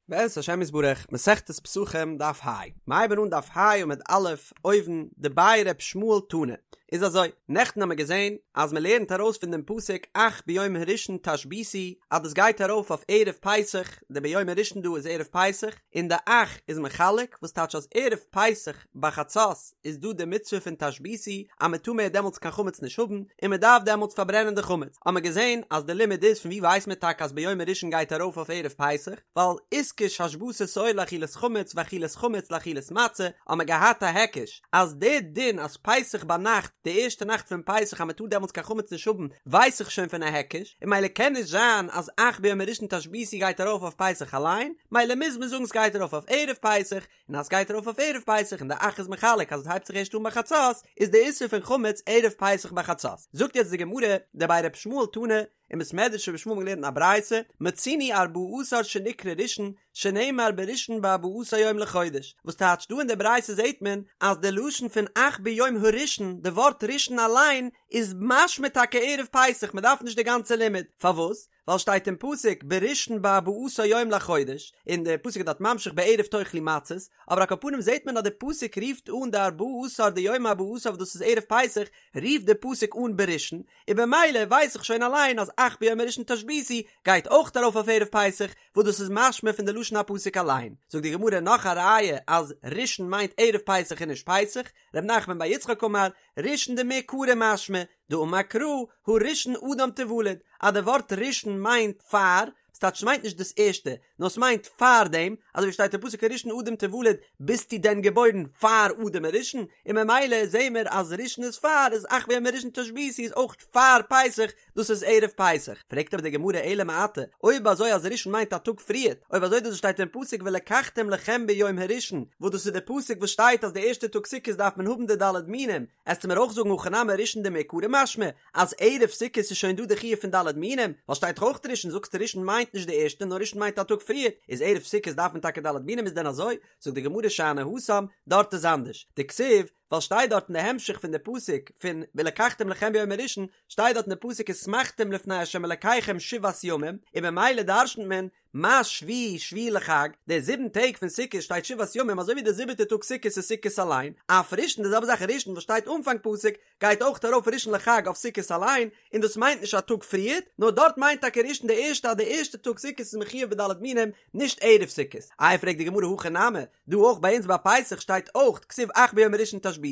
בעזרת השם יתברך, מסכת פסחים דף ה, מ'הייבן אן דף ה עמוד א', אויבן, דבי ר' ישמעאל תנא. איז אזוי, נעכטן האמיר געזען אז מען לערנט ארויס פון דעם פסוק אך ביום הראשון תשביתו אז דאס גייט ארויף אויף ערב פסח, די ביום הראשון דא איז ערב פסח, און די אך איז מחלק, וואס טייטש אז ערב פסח ביי חצות איז דא די מצוה פון תשביתו אז מען טאר מער דעמאלטס קיין חמץ נישט האבן, און מען דארף דעמאלטס פארברענען די חמץ. האמיר געזען אז די לימוד איז פון ווי ווייסט מען טאקע אז ביום הראשון גייט ארויף אויף ערב פסח, ווייל איתקש השבתת שאור לאכילת חמץ ואכילת חמץ לאכילת מצה, האמיר געהאט א היקש אז די דין אז פסח ביינאכט די ערשטע נאכט פון פסח אז מען טאר דעמאלטס קיין חמץ נישט האבן ווייס איך שוין פון א היקש, און ממילא קען נישט זיין אז אך ביום הראשון תשביתו גייט ארויף אויף פסח אליין, ממילא מוז מען זאגן ס'גייט ארויף אויף ערב פסח, און אז סגייט ארויף אויף ערב פסח און די אך איז מחלק אז עס הייבט זיך ערשט אן ביי חצות, איז די איסור פון חמץ ערב פסח ביי חצות. זאגט יעצט די גמרא, דבי ר' ישמעאל תנא, אין בית מדרש רבי ישמעאל האט מען געלערנט א ברייתא, מצינו ארבעה עשר שנקרא ראשון, שנאמר בראשון בארבעה עשר יום לחודש, וואס טייטש דא אין די ברייתא זעט מען אז די לשון פון אך ביום הראשון, די ווארט ראשון אליין, איז משמע טאקע ערב פסח, מען דארף נישט די גאנצע לימוד, פארוואס? ווייל שטייט אין פסוק בראשון בארבעה עשר יום לחודש, און די פסוק איז דארט ממשיך בערב תאכלו מצות, אבער על כל פנים זעט מען אז די פסוק רופט אן די ארבעה עשר די יום ארבעה עשר וואס דאס איז ערב פסח, רופט די פסוק אן בראשון, און במילא ווייס איך שוין אליין אז אך ביום הראשון תשביתו גייט אויך ארויף אויף ערב פסח, וואס דאס איז משמע פון די לשון הפסוק אליין. זאגט די גמרא נאך א ראיה אז ראשון מיינט ערב פסח און נישט פסח, ר' נחמן בר יצחק אמר, ראשון דמעיקרא משמע, דאמר קרא, הראשון אדם תולד, אז די ווארט ראשון מיינט פאר, ס'טייטש ס'מיינט נישט דאס ערשטע, נאר ס'מיינט פאר דעם, אזוי ווי שטייט אין פסוק הראשון אדם תולד, ביסטו דען געבוירן פאר אדם הראשון? און ממילא זעהן מיר אז ראשון איז פאר, איז אך ביום הראשון תשביתו איז אויך פאר פסח, דאס איז ערב פסח. פרעגט אבער די גמרא אלא מעתה, אויב אזוי אז ראשון מיינט א טאג פריערט, אויב אזוי דאס וואס שטייט אין פסוק ולקחתם לכם ביום הראשון, וואס דאס איז די פסוק וואס שטייט אז די ערשטע טאג סוכות דארף מען האבן די ד' מינים, עסטו מיר אויך זאגן הכא נמי ראשון דמעיקרא משמע אז ערב סוכות איז שוין דא די חיוב פון ד' מינים, ווייל שטייט דאך אויך ראשון, זאגסטו ראשון מיינט נישט די ערשטע נאר ראשון מיינט א טאג פריערט, איז ערב סוכות דארף מען טאקע ד' מינים איז דען אזוי? זאגט די גמרא שאני התם, דארט איז אנדערש, דכתיב, ווייל שטייט דארט אין די המשך פון די פסוק פון ולקחתם לכם ביום הראשון, שטייט דארט אין די פסוק ושמחתם לפני ה' אלקיכם שבעת ימים, און במילא דרשנ'ט מען מה שביעי שביעי לחג, די זיבן טעג פון סוכות שטייט שבעת ימים אזוי ווי די זיבעטע טאג סוכות איז סוכות אליין, אף ראשון די זעלבע זאך ראשון וואס שטייט אנפאנג פסוק גייט אויך ארויף ראשון לחג אויף סוכות אליין, און דאס מיינט נישט א טאג פריערט, נאר דארט מיינט טאקע ראשון די ערשטע אז די ערשטע טאג סוכות איז מחויב בד' מינים, נישט ערב סוכות. איי פרעגט די גמרא הכא נמי, דא אויך ביי אונז ביי פסח שטייט אויך כתיב אך ביום הראשון תשביתו,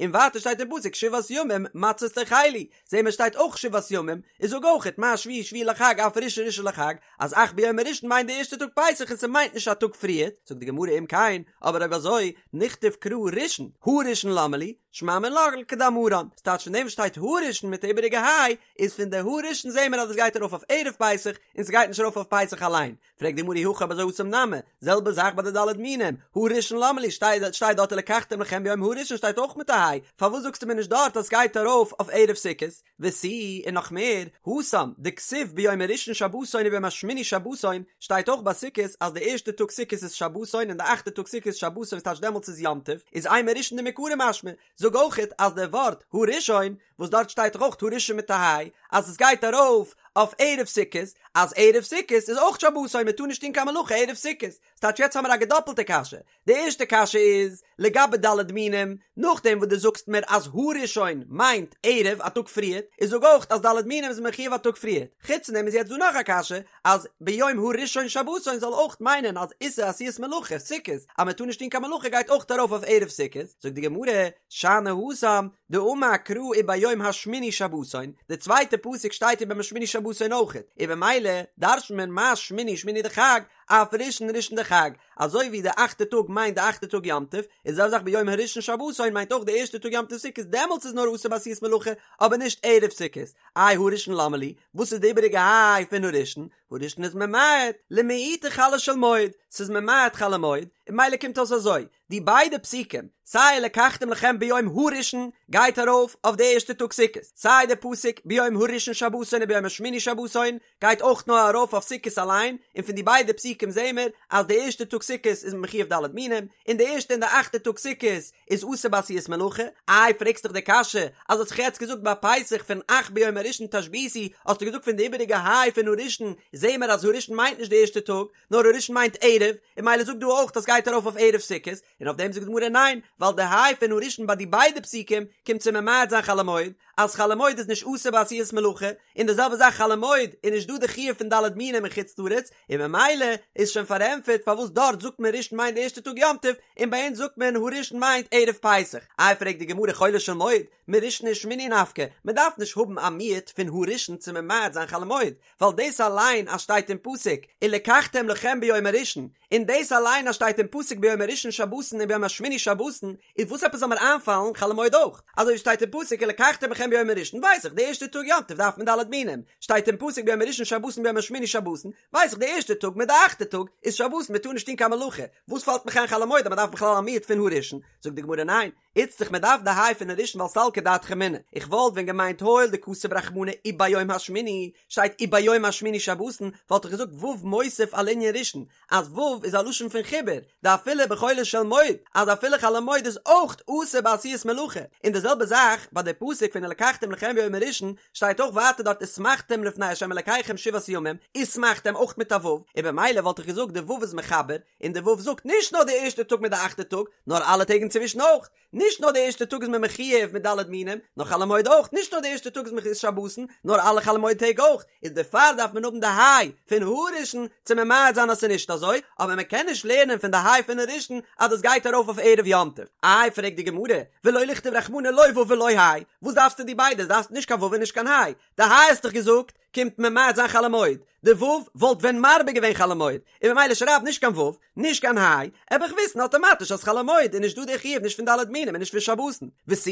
און ווייטער שטייט אין פסוק שבעת ימים מצות תאכלו, זעהן מיר שטייט אויך שבעת ימים, איז זאג אויכעט מה שביעי שביעי לחג אף ראשון ראשון לחג, אז אך ביום הראשון מיינט די ערשטע טאג פסח און ס'מיינט נישט א טאג פריערט, זאגט די גמרא אם כן, אבער אויב אזוי, נכתוב קרא ראשון, הראשון למה לי, שמע מינה לכדאמרן, ס'טייטש פון דעם וואס שטייט הראשון מיט די איבעריגע היי, איז פון די הראשון זעהן מיר אז עס גייט ארויף אויף ערב פסח, און ס'גייט נישט ארויף אויף פסח אליין, פרעגט די גמרא אי הכי אויב אזוי התם נמי, זעלבע זאך ביי די ד' מינים, הראשון למה לי, שטייט דארט ולקחתם לכם ביום הראשון שטייט אויך מיט א היי, פארוואס זאגסטו מיר נישט דארט אז סגייט ארויף אויף ערב סוכות? ותו, און נאך מער, התם, דכתיב ביום הראשון שבתון וביום השמיני שבתון, שטייט אויך ביי סוכות אז די ערשטע טאג סוכות איז שבתון און די אכטע טאג סוכות איז שבתון וואס טייטש דעמאלטס איז יום טוב, איז אימא ראשון דמעיקרא משמע, זאג אויכעט אז די ווארט הראשון וואס דארט שטייט דאך אויך הראשון מיט א היי, אז עס גייט ארויף אויף ערב סוכות, אז ערב סוכות איז אויך שבתון מען טאר נישט טון קיין מלאכה ערב סוכות, ס'טייטש יעצט האמיר א געדאפלטע קשיא, די ערשטע קשיא איז לגבי ד' מינים, נאכדעם וואס דו זאגסט מיר אז הראשון מיינט ערב א טאג פריערט, איז זאג אויך אז ד' מינים איז מחויב א טאג פריערט, חוץ פון דעם איז יעצט דא נאך א קשיא, אז ביום הראשון שבתון זאל אויך מיינען אז איסור עשיית מלאכה, סוכות, אז מען טאר נישט טון קיין מלאכה גייט אויך ארויף אויף ערב סוכות, זאגט די גמרא, שאני התם, דאמר קרא וביום השמיני שבתון, די צווייטע פסוק שטייט וביום השמיני שבתון אויכעט, און במילא דרש'נט מען מה שמיני שמיני דחג, אף ראשון ראשון דחג, אזוי ווי די אכטע טאג מיינט די אכטע טאג יום טוב, איז די זעלבע זאך ביום הראשון שבתון מיינט אויך די ערשטע טאג יום טוב סוכות דעמאלטס איז נאר אסור בעשיית מלאכה אבער נישט ערב סוכות, איי הראשון למה לי, וואס איז די איבעריגע היי פון הראשון? הראשון איז ממעט, למעוטי חולו של מועד, ס'איז ממעט חול המועד, און ממילא קומט אויס אזוי, די ביידע פסוקים, סיי ולקחתם לכם ביום הראשון גייט ארויף אויף די ערשטע טאג סוכות, סיי די פסוק ביום הראשון שבתון וביום השמיני שבתון גייט אויך נאר ארויף אויף סוכות אליין, און פון די ביידע פסוקים. פסוקים זעהן מיר אז די ערשטע טאג סוכות איז מען מחיוב ד' מינים, און די ערשטע און די אכטע טאג סוכות איז אסור בעשיית מלאכה, איי פרעגסט דאך די קשיא אז האסט דאך יעצט געזאגט ביי פסח פון אך ביום הראשון תשביתו האסטו געזאגט פון די איבעריגע היי פון הראשון זעהן מיר אז הראשון מיינט נישט די ערשטע טאג נאר הראשון מיינט ערב, און ממילא זאג דא אויך אז סגייט ארויף אויף ערב סוכות, און אויף דעם זאגט די גמרא ניין ווייל די היי פון הראשון ביי די ביידע פסוקים קומט צו ממעט זיין חול המועד, אז חול המועד איז נישט אסור בעשיית מלאכה, און די זעלבע זאך חול המועד איז נישט דא די חיוב פון ד' מינים אין חוץ לארץ, און ממילא איז שוין פארענטפערט פארוואס דארט זאגט מען ראשון מיינט די ערשטע טאג יום טוב, און ביי אונז זאגט מען הראשון מיינט ערב פסח. איי פרעגט די גמרא חולו של מועד, מראשון ושמיני נפקא, מען דארף נישט האבן א מיעוט פון הראשון צו ממעט זיין חול המועד, ווייל דאס אליין אז שטייט אין פסוק ולקחתם לכם ביום הראשון, און דאס אליין אז שטייט אין פסוק ביום הראשון שבתון און ביום השמיני שבתון, איז וואס עפעס זאל מיר איינפאלן חול המועד אויך? אזוי ווי שטייט אין פסוק ולקחתם לכם ביום הראשון ווייס איך די ערשטע טאג יום טוב דארף מען ד' מינים, שטייט אין פסוק ביום הראשון שבתון ביום השמיני שבתון, ווייס איך די ערשטע טאג מיט די אכטע טאג איז שבתון מען טאר נישט טון קיין מלאכה, וואס פאלט מיך איין חול המועד אז מען דארף בכלל א מיעוט פון הראשון? זאגט די גמרא ניין, איצטריך מען דארף די היי פון הראשון ווייל סלקא דעתך אמינא, איך וואלט ווען געמיינט הואיל דכתב רחמנא וביום השמיני, שטייט וביום השמיני שבתון, וואלט איך געזאגט ו' מוסיף על ענין ראשון, אז ו' איז א לשון פון חיבור, דאפילו בחולו של מועד, אז אפילו חול המועד איז אויך אסור בעשיית מלאכה, און די זעלבע זאך ביי די פסוק פון ולקחתם לכם ביום הראשון, שטייט אויך ווייטער דארט ושמחתם לפני ה' אלקיכם שבעת ימים, ושמחתם אויך מיט א ו', און במילא וואלט איך געזאגט די ו' איז מחבר, און די ו' זאגט נישט נאר די ערשטע טאג מיט די אכטע טאג, נאר אלע טעג אינצווישן אויך. נישט נאר די ערשטע טאג איז מען מחיוב מיט ד' מינים, נאר חול המועד אויך, נישט נאר די ערשטע טאג איז מען שבתון, נאר אלע חול המועד טעג אויך, איז דערפאר דארף מען האבן די היי פון הראשון צו ממעט זיין אז ס'איז נישט אזוי, אבער מען קען נישט לערנען פון די היי פון הראשון אז דאס גייט ארויף אויף ערב יום טוב. איי פרעגט די גמרא, ולא לכתוב רחמנא לא ו' ולא היי, וואס דארפסטו די ביידע, דארפסט נישט קיין ו' און נישט קיין היי, די היי האסט דאך געזאגט קומט ממעט זיין חול המועד, די ו' וואלט ווען מרבה געווען חול המועד, און ממילא שרייב נישט קיין ו', נישט קיין היי, וועל איך וויסן אטאמאטיש אז חול המועד איז נישט דא די חיוב נישט פון ד' מינים און נישט פון שבתון, ותו,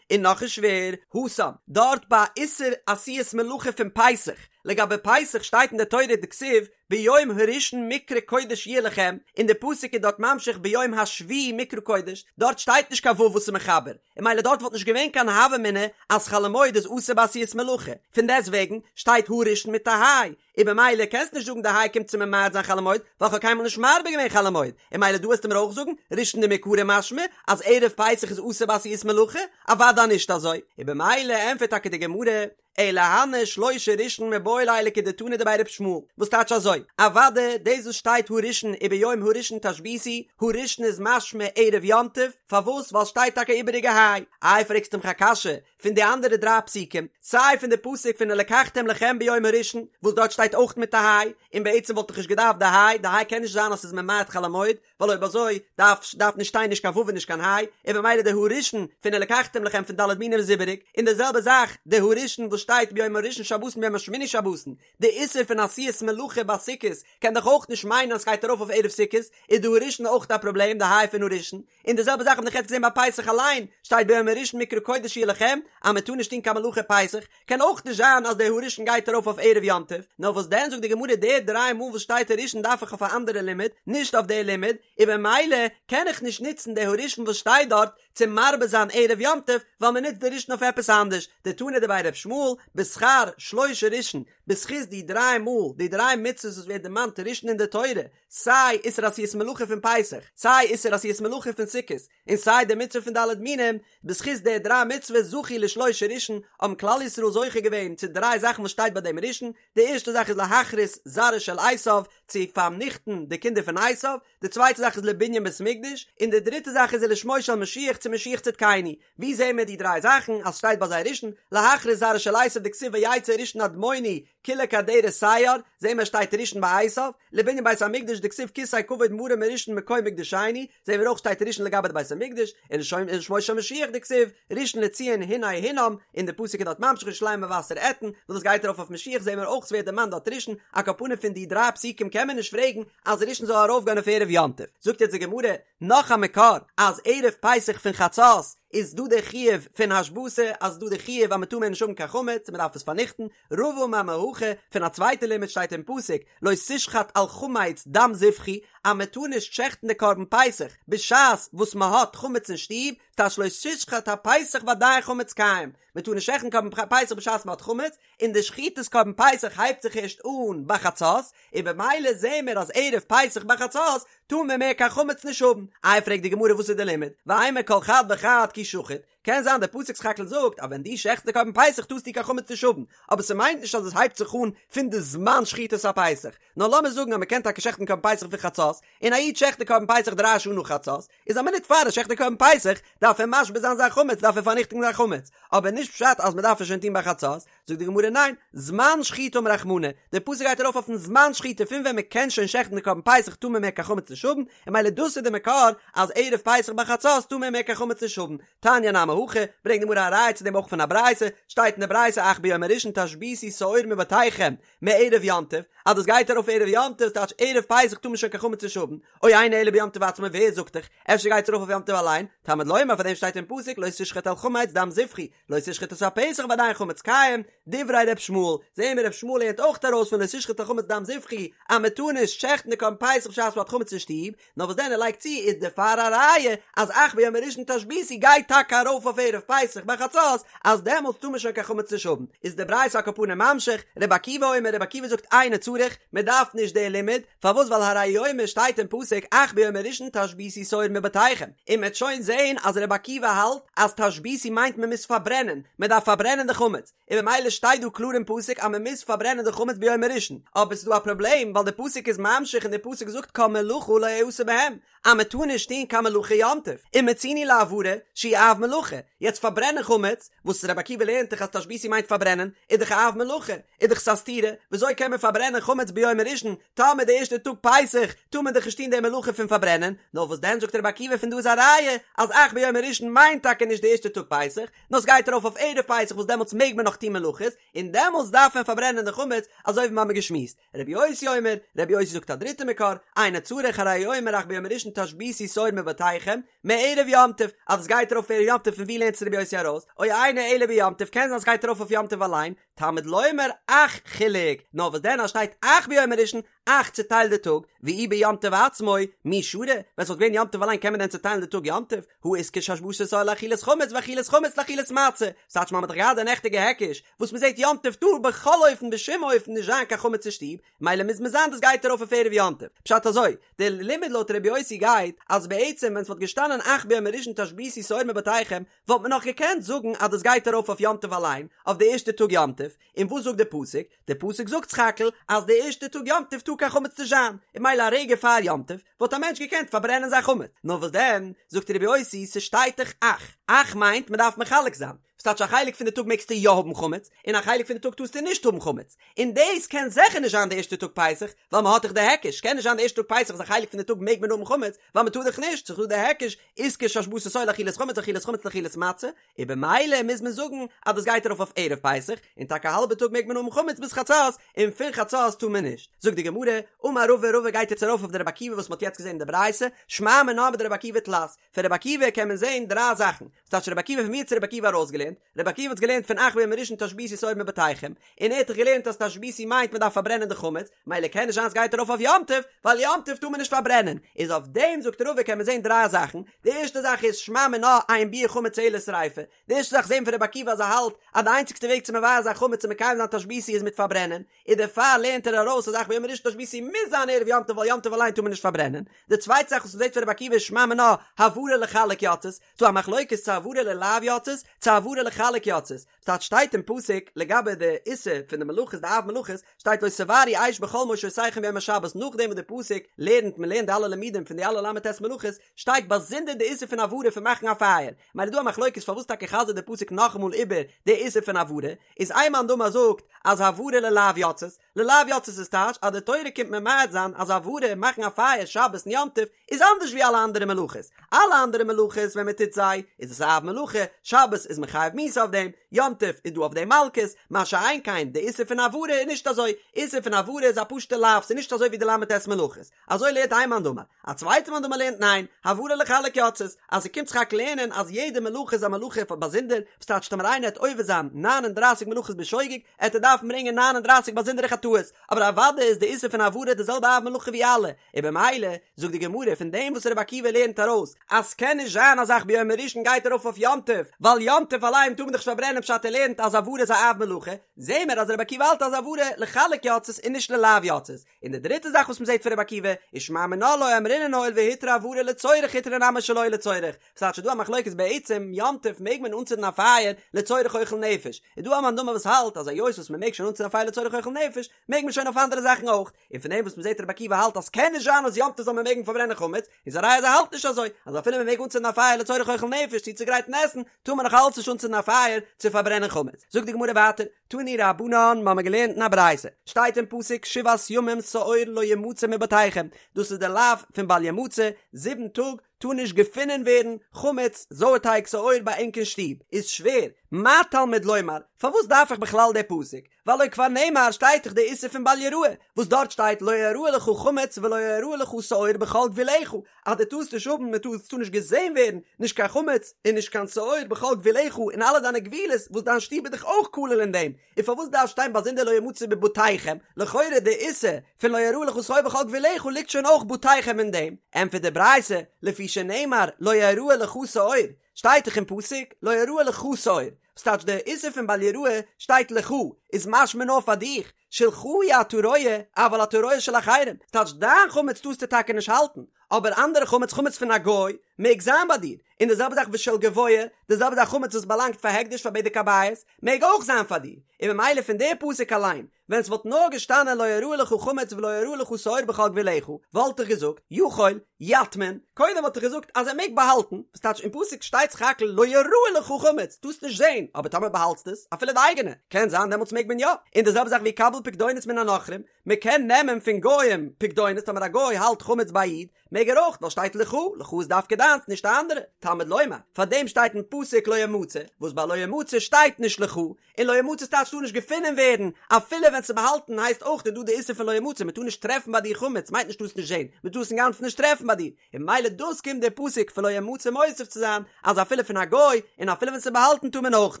און נאך איז שווער, התם, דארט ביי איסור עשיית מלאכה פון פסח, לגבי פסח שטייט אין די תורה דכתיב ביום הראשון מקרא קודש יהיה לכם, און די פסוק איז דארט ממשיך ביום השביעי מקרא קודש, דארט שטייט נישט קיין ו' וואס איז מחבר, און ממילא דארט וואלט נישט געווען קיין הוה אמינא אז חול המועד איז אסור בעשיית מלאכה, פון דעסט וועגן שטייט הראשון מיט א היי, און במילא קענסט נישט זאגן די היי קומט צו ממעט זיין חול המועד, ווייל כ'האב קיינמאל נישט מרבה געווען חול המועד, און ממילא דא וועסטו מיר אויך זאגן ראשון דמעיקרא משמע אז ערב פסח איז אסור בעשיית מלאכה, אוודאי נישט אזוי, און במילא ענטפערט טאקע די גמרא, אלא הני שלשה ראשון מיבעי ליה לכדתנא דבי ר' ישמעאל, וואס טייטש אזוי, אוודאי דאס וואס שטייט הראשון וביום הראשון תשביתו, הראשון איז משמע ערב יום טוב, פארוואס ווייל שטייט טאקע איבעריגע היי, איי פרעגסטו מיך א קשיא פון די אנדערע דריי פסוקים, סיי פון די פסוק פון ולקחתם לכם ביום הראשון וואס דארט שטייט אויך מיט א היי, און בעצם וואלט איך נישט געדארפט די היי, די היי קען נישט זיין אז ס'איז ממעט חול המועד, ווייל אויב אזוי דארף דארף נישט שטיין נישט קיין ו' און נישט קיין היי, און במילא די הראשון פון ולקחתם לכם פון ד' מינים איז איבעריג, און די זעלבע זאך די הראשון וואס שטייט ביום הראשון שבתון ביום השמיני שבתון, די איסור פון עשיית מלאכה ביי סוכות קען דאך אויך נישט מיינען אז סגייט ארויף אויף ערב סוכות, איז די הראשון אויך א פראבלעם די היי פון הראשון, און די זעלבע זאך האב איך יעצט געזען ביי פסח אליין, שטייט ביום הראשון מקרא קודש יהיה לכם, אז מען טאר נישט טון קיין מלאכה פסח, קען אויך נישט זיין אז דער הראשון גייט ארויף אויף ערב יום טוב, נאר וואס דען זאגט די גמרא די דריי מאל וואס שטייט הראשון דארף איך אויף א אנדערע לימוד, נישט אויף די לימוד, און במילא קען איך נישט נוצן די הראשון וואס שטייט דארט צו מרבה זיין ערב יום טוב, ווייל מען נוצט די ראשון אויף עפעס אנדערש, דתנא דבי ר' ישמעאל, בשכר שלשה ראשון, בזכות די דריי מאל, די דריי מצוות וואס ווערט דערמאנט ראשון אין די תורה, סיי איסור עשיית מלאכה פון פסח, סיי איסור עשיית מלאכה פון סוכות, און סיי די מצוה פון ד' מינים, בזכות די דריי מצוות זכו לשלושה ראשון, האבן כלל ישראל זוכה געווען צו דריי זאכן וואס שטייט ביי דעם ראשון, די ערשטע זאך איז להכרית זרעו של עשיו, צו פארניכטן די קינדער פון עשיו, די צווייטע זאך איז לבנין בית מקדש, און די דריטע זאך איז ולשמו של משיח צו משיח צדקינו. ווי זעהן מיר די דריי זאכן אז שטייט ביי זיי ראשון, להכרית זרעו של עשיו דכתיב ויצא ראשון אדמוני כולו כאדרת שער, זעהן מיר שטייט ראשון ביי עשיו, לבנין בית המקדש דכתיב כסא כבוד מרום מראשון מקום מקדשנו, זעהן מיר אויך שטייט ראשון לגבי די בית המקדש, און ולשמו של משיח דכתיב ראשון לציון הנה הונם, און די פסוק איז דארט ממשיך ירושלים מבשר אתן, וואס דאס גייט ארויף אויף משיח זעהן מיר אויך ס'ווערט דערמאנט דארט ראשון, על כל פנים פון די דריי פסוקים קען מען נישט פרעגן אז ראשון זאל ארויפגיין אויף ערב יום טוב, זאגט יעצט די גמרא נאך א מקור אז ערב פסח פון חצות איז דא די חיוב פון השבתה אז ס'דא די חיוב אז מ'טאר מער נישט האבן קיין חמץ און מ'דארף עס פארניכטן, רבא אמר מהכא, פון א צווייטע לימוד שטייט אין פסוק לא תשחט על חמץ דם זבחי אז מ'טאר נישט שעכטן די קרבן פסח בשעת וואס מ'האט חמץ אין שטוב, טייטש לא תשחט הפסח ועדיין חמץ קיים, מ'טאר נישט שעכטן קרבן פסח בשעת מ'האט חמץ, און די שחיטת קרבן פסח הייבט זיך ערשט אן ביי חצות, און במילא זעהן מיר אז ערב פסח ביי חצות טאר מען מער קיין חמץ נישט האבן. איי פרעגט די גמרא וואס איז די לימוד? ואימא כל חד וחד כי שחיט, קען זיין דער פסוק סך הכל זאגט אז ווען דו שעכטסט די קרבן פסח טארסטו קיין חמץ נישט האבן, אבער ס'מיינט נישט אז עס הייבט זיך אן פון די זמן שחיטת הפסח, נאר לאמיר זאגן אז מ'קען טאקע שעכטן קרבן פסח פון חצות, און א איד שעכט די קרבן פסח דריי שעה נאך חצות, איז א מינוט פאר ער שעכט די קרבן פסח דארף ער משבית זיין זיין חמץ דארף ער פארניכטיגן זיין חמץ, אבער נישט פשט אז מ'דארף עס שוין טון ביי חצות, זאגט די גמרא ניין, זמן שחיטה אמר רחמנא, דער פסוק גייט ארויף אויפן זמן שחיטה פון ווען מען קען שוין שעכטן די קרבן פסח טאר מען מער קיין חמץ נישט האבן, און ממילא דאס איז די מקור אז ערב פסח ביי חצות טאר מען מער קיין חמץ נישט האבן, תניא נמי הכי, ברענגט די גמרא א ראיה צו דעם אויך פון א ברייתא, שטייט אין די ברייתא אך ביום הראשון תשביתו שאור מבתיכם מערב יום טוב, אז דאס גייט ארויף ערב יום טוב טייטש ערב פסח טאר מען שוין קיין חמץ נישט האבן, או אינו אלא ביום טוב עצמו ווער זאגט דיך, אפשר גייט עס ארויף אויף יום טוב אליין, תלמוד לומר פאר דעם שטייט אין פסוק לא תשחט על חמץ דם זבחי, לא תשחט את הפסח ועדיין חמץ קיים, דברי ר' ישמעאל, זעהן מיר ר' ישמעאל לערנט אויך ארויס פון לא תשחט על חמץ דם זבחי אז מען טאר נישט שעכטן די קרבן פסח בשעת מען האט חמץ אין שטוב, נאר וואס דען ער לייגט צו איז דערפאר א ראיה אז אך ביום הראשון תשביתו גייט טאקע ארויף אויף ערב פסח ביי חצות אז דעמאלטס טאר מען שוין קיין חמץ נישט האבן, איז די ברייתא על כל פנים ממשיך, ר' עקיבא אומר ר' עקיבא זאגט אינו צריך, מען דארף נישט די לימוד, פארוואס ווייל הרי הוא אומר שטייט אין פסוק אך ביום הראשון תשביתו שאור מבתיכם, און מ'עט שוין זעהן אז רבי עקיבא האלט אז תשביתו מיינט מען מוז פארברענען, מען דארף פארברענען די חמץ, און במילא שטייט דא קלאר אין פסוק אז מען מוז פארברענען די חמץ ביום הראשון, אבער ס'איז דא א פראבלעם ווייל די פסוק איז ממשיך און די פסוק זאגט כל מלאכה לא יעשה בהם, אז מען טאר נישט טון קיין מלאכה יום טוב, ומצינו להבערה שהיא אב מלאכה, יעצט פארברענען חמץ, וואס רבי עקיבא לערנט דאך אז תשביתו מיינט פארברענען, איז דאך א אב מלאכה, איז דאך ס'א סתירה, וויאזוי קען מען פארברענען חמץ ביום הראשון, טאמער די ערשטע טאג פסח טאר מען דאך נישט טון די מלאכה פון פארברענען, נאר וואס דען זאגט רבי עקיבא פון דא איז א ראיה אז אך ביום הראשון מיינט טאקע נישט די ערשטע טאג פסח, נאר ס'גייט ארויף אויף ערב פסח וואס דעמאלטס מעג מען נאך טון מלאכות, און דעמאלטס דארף מען פארברענען די חמץ, אזוי ווי מ'האמיר געשמועסט. רבי יוסי אומר, רבי יוסי זאגט א דריטע מקור, אינו צריך הרי הוא אומר אך ביום הראשון תשביתו שאור מבתיכם, מערב יום טוב, אז עס גייט ארויף ערב יום טוב פון ווי לערנט עס רבי יוסי ארויס, או אינו אלא ביום טוב קען זיין עס גייט ארויף אויף יום טוב אליין, תלמוד לומר אך חילק, נאר וואס דען אז שטייט אך ביום הראשון, אך צוטיילט די טאג, ואי ביום טוב עצמו, מי שרי, ווען ס'וואלט געווען יום טוב אליין קען מען דען צוטיילן די טאג יום טוב, הא איתקש השבתת שאור לאכילת חמץ ואכילת חמץ לאכילת מצה, ס'טייטש מ'האט דאך געהאט די נעכטיגע היקש, וואס מ'זעט יום טוב טאר בכל אופן בשום אופן נישט זיין קיין חמץ אין שטוב, מילא מוז מען זיין דאס גייט ארויף אויף ערב יום טוב. פשט אזוי, די לימוד לויט רבי יוסי גייט, אז בעצם ווען ס'וואלט געשטאנען אך ביום הראשון תשביתו שאור מבתיכם, וואלט מען נאך געקענט זאגן אז דאס גייט ארויף אויף יום טוב אליין, אויף די ערשטע טאג יום טוב, און וואס זאגט די פסוק? די פסוק זאגט סך הכל אז די ערשטע טאג יום טוב טאר קיין חמץ נישט זיין, און מילא א רגע פאר יום טוב וואלט א מענטש געקענט פארברענען זיין חמץ, נאר וואס דען, זאגט רבי יוסי, ס'שטייט דאך אך, אך מיינט מ'דארף מחלק זיין, ס'טייטש א חלק פון די טאג מעגסטו יא האבן חמץ, און א חלק פון די טאג טארסטו נישט האבן חמץ, און דאס קען זיכער נישט זיין די ערשטע טאג פסח, ווייל מ'האט דאך די היקש, קען נישט זיין די ערשטע טאג פסח אז א חלק פון די טאג מעג מען האבן חמץ, ווייל מ'טאר דאך נישט, ס'איז דא די היקש, איתקש השבתת שאור לאכילת חמץ אכילת חמץ לאכילת מצה, און במילא מוז מען זאגן אז דאס גייט ארויף אויף ערב פסח, און טאקע א האלבע טאג מעג מען האבן חמץ ביז חצות, און פון חצות טאר מען נישט. זאגט די גמרא, אמר רבא, רבא גייט יעצט ארויף אויף די רבי עקיבא וואס מ'האט יעצט געזען אין די ברייתא, שמע מינה מדרבי עקיבא תלת, פון רבי עקיבא קען מען זען דריי זאכן, ס'טייטש רבי עקיבא פון ווי האט עס רבי עקיבא ארויסגעלערנט? רבי עקיבא האט עס געלערנט פון אך ביום הראשון תשביתו שאור מבתיכם, און ער האט דאך געלערנט אז תשביתו מיינט מען דארף פארברענען די חמץ, מילא קען נישט זיין סגייט ארויף אויף יום טוב, ווייל יום טוב טאר מען נישט פארברענען, איז אויף דעם זאגט רבא קען מען זען דריי זאכן, די ערשטע זאך איז שמע מינה אין ביעור חמץ אלא שריפה, די ערשטע זאך זעהן פון רבי עקיבא אז ער האלט אז די איינציגסטע וועג צו מבער זיין חמץ און מקיים זיין תשביתו איז מיט פארברענען, און דערפאר לערנט ער ארויס אז אך ביום הראשון תשביתו מוז זיין ערב יום טוב ווייל יום טוב אליין טאר מען נישט פארברענען, די צווייטע זאך וואס מ'זעט פון רבי עקיבא איז שמע מינה הבערה לחלק יצאת, ס'דא א מחלוקת צו הבערה ללאו יצאת צו הבערה לחלק יצאת, ס'טייטש שטייט אין פסוק לגבי די איסור פון די מלאכות די אב מלאכות שטייט לא תבערו אש בכל מושבותיכם ביום השבת נאכדעם וואס די פסוק לערנט מ'לערנט די אלע לימודים פון די אלע ל"ט מלאכות שטייט באזונדער די איסור פון הבערה פון מאכן א פייער מילא דא א מחלוקת פארוואס טאקע חזר'ט די פסוק נאכאמאל איבער די איסור פון הבערה איז איין מאן דאמר זאגט אז הבערה ללאו יצאת ללאו יצאת איז טייטש אז די תורה קומט ממעט זיין אז הבערה מאכן א פייער שבת און יום טוב איז אנדערש ווי אלע אנדערע מלאכות, אלע אנדערע מלאכות ווען מען טוט זיי איז עס א אב מלאכה, שבת איז מען חייב. חייב מיתה אויף דעם, יום טוב איז דא אויף דעם מלקות, מה שאין כן די איסור פון הבערה איז נישט אזוי, איסור פון הבערה איז א פשוטע לאו, ס'איז נישט אזוי ווי די ל"ט מלאכות, אזוי לערנט איין מאן דאמר, א צווייטע מאן דאמר לערנט ניין, הבערה לחלק יצאת, אז ס'קומט זיך רק לערנען אז יעדע מלאכה איז א מלאכה פאר באזונדער, וואס טייטש טאמער איינער העט עובר זיין ניין און דרייסיג מלאכות בשוגג, העט ער דארפן ברענגען ניין און דרייסיג באזונדערע חטאות, אבער אוודאי איז די איסור פון הבערה די זעלבע אב מלאכה ווי אלע, און במילא זאגט די גמרא פון דעם וואס רבי עקיבא לערנט ארויס אז ס'קען נישט זיין אז אך ביום הראשון גייט ארויף אויף יום טוב, ווייל יום טוב אליין טאר מען דאך נישט פארברענען פשט ער לערנט אז הבערה איז א אב מלאכה, זעהן מיר אז רבי עקיבא האלט אז הבערה לחלק יצאת און נישט ללאו יצאת, און די דריטע זאך וואס מ'זעט פון רבי עקיבא, ושמע מינה לא אמרינן הואיל והותרה הבערה לצורך הותרה נמי שלא לצורך, ס'טייטש ס'איז דא א מחלוקת בעצם יום טוב מעג מען אנצינדן א פייער לצורך אוכל נפש, איז דא א מאן דאמר וואס האלט אז היות וואס מ'מעג שוין אנצינדן א פייער לצורך אוכל נפש מעג מען שוין אויף אנדערע זאכן אויך, און פון דעם וואס מ'זעט רבי עקיבא האלט אז ס'קען נישט זיין אז יום טוב זאל מען מעגן פארברענען חמץ, איז א ראיה אז ער האלט נישט אזוי, אז אפילו מ'מעג אנצינדן א פייער לצורך אוכל נפש צו צוגרייטן עסן, טאר מען נאך אלץ נישט אנצינדן א פייער צו פארברענען חמץ. זאגט די גמרא ווייטער, תנו רבנן, מ'האמיר געלערנט אין א ברייתא, שטייט אין פסוק שבעת ימים שאור לא ימצא מבתיכם, דאס איז די לאו פון בל ימצא, זיבן טאג טאר נישט געפונען ווערן חמץ, זויערטייג, שאור ביי ענק אין שטוב, איז שווער, מה תלמוד לומר, פארוואס דארף איך בכלל די פסוק, והלא כבר נאמר שטייט דאך די איסור פון בל יראה, וואס דארט שטייט לא יראה לך חמץ ולא יראה לך שאור בכל גבולך, אז דו טארסט נישט האבן, מען טאר, עס טאר נישט געזען ווערן, נישט קיין חמץ און נישט קיין שאור בכל גבולך אין אלע דיינע גבולות, וואס דיין שטוב איז דאך אויך כולל אין דעם, און פארוואס דארף שטיין באזונדער לא ימצא בבתיכם, לכאורה די איסור פון לא יראה לך שאור בכל גבולך ליגט שוין אויך בתיכם אין דעם, ענטפערט די ברייתא, לפי שנאמר לא יראה לך שאור, שטייט דאך אין פסוק לא יראה לך שאור, וואס טייטש די איסור פון בל יראה שטייט לך איז משמע נאר פאר דיך, שלך אי אתה רואה, אבל אתה רואה של אחרים, ס'טייטש דיין חמץ טארסטו טאקע נישט האלטן, אבער אנדערע חמץ, חמץ פון א גוי, מעג זיין ביי דיר, און די זעלבע זאך ושל גבוה, די זעלבע זאך חמץ וואס באלאנגט פאר הקדש פאר בדק הבית, מעג אויך זיין פאר דיר, און ממילא פון די פסוק אליין, ווען ס'וואלט נאר געשטאנען לא יראה לך חמץ ולא יראה לך שאור בכל גבולך, וואלט איך געזאגט, יכול, יטמין, קודם וואלט איך געזאגט אז ער מעג באהאלטן, וואס טייטש אין פסוק שטייט סך הכל לא יראה לך חמץ, טארסט נישט זען, אבער טאמער באהאלטסט עס, אפילו די אייגענע, קען זיין דעמאלטס מעג מען יא, און די זעלבע זאך ויקבל פקדונות מן הנכרים, מען קען נעמען פון גוים פקדונות, טאמער א גוי האלט חמץ ביי א איד, מעג ער אויך, ווייל שטייט לך, לך איז דווקא דיינס, נישט א אנדערע, תלמוד לומר, פארדעם שטייט אין פסוק לא ימצא, וואס ביי לא ימצא שטייט נישט לך, און לא ימצא טייטש טאר נישט געפונען ווערן, אפילו ווען ס'איז באהאלטן הייסט אויך איז דא די איסור פון לא ימצא, מ'טאר נישט טרעפן ביי דיר חמץ מיינט נישט טארסט נישט זען, מ'טאר עס אינגאנצן נישט טרעפן ביי דיר, און ממילא דאס קומט דער פסוק פון לא ימצא מוסיף צו זיין אז אפילו פון א גוי און אפילו ווען ס'איז באהאלטן טאר מען אויך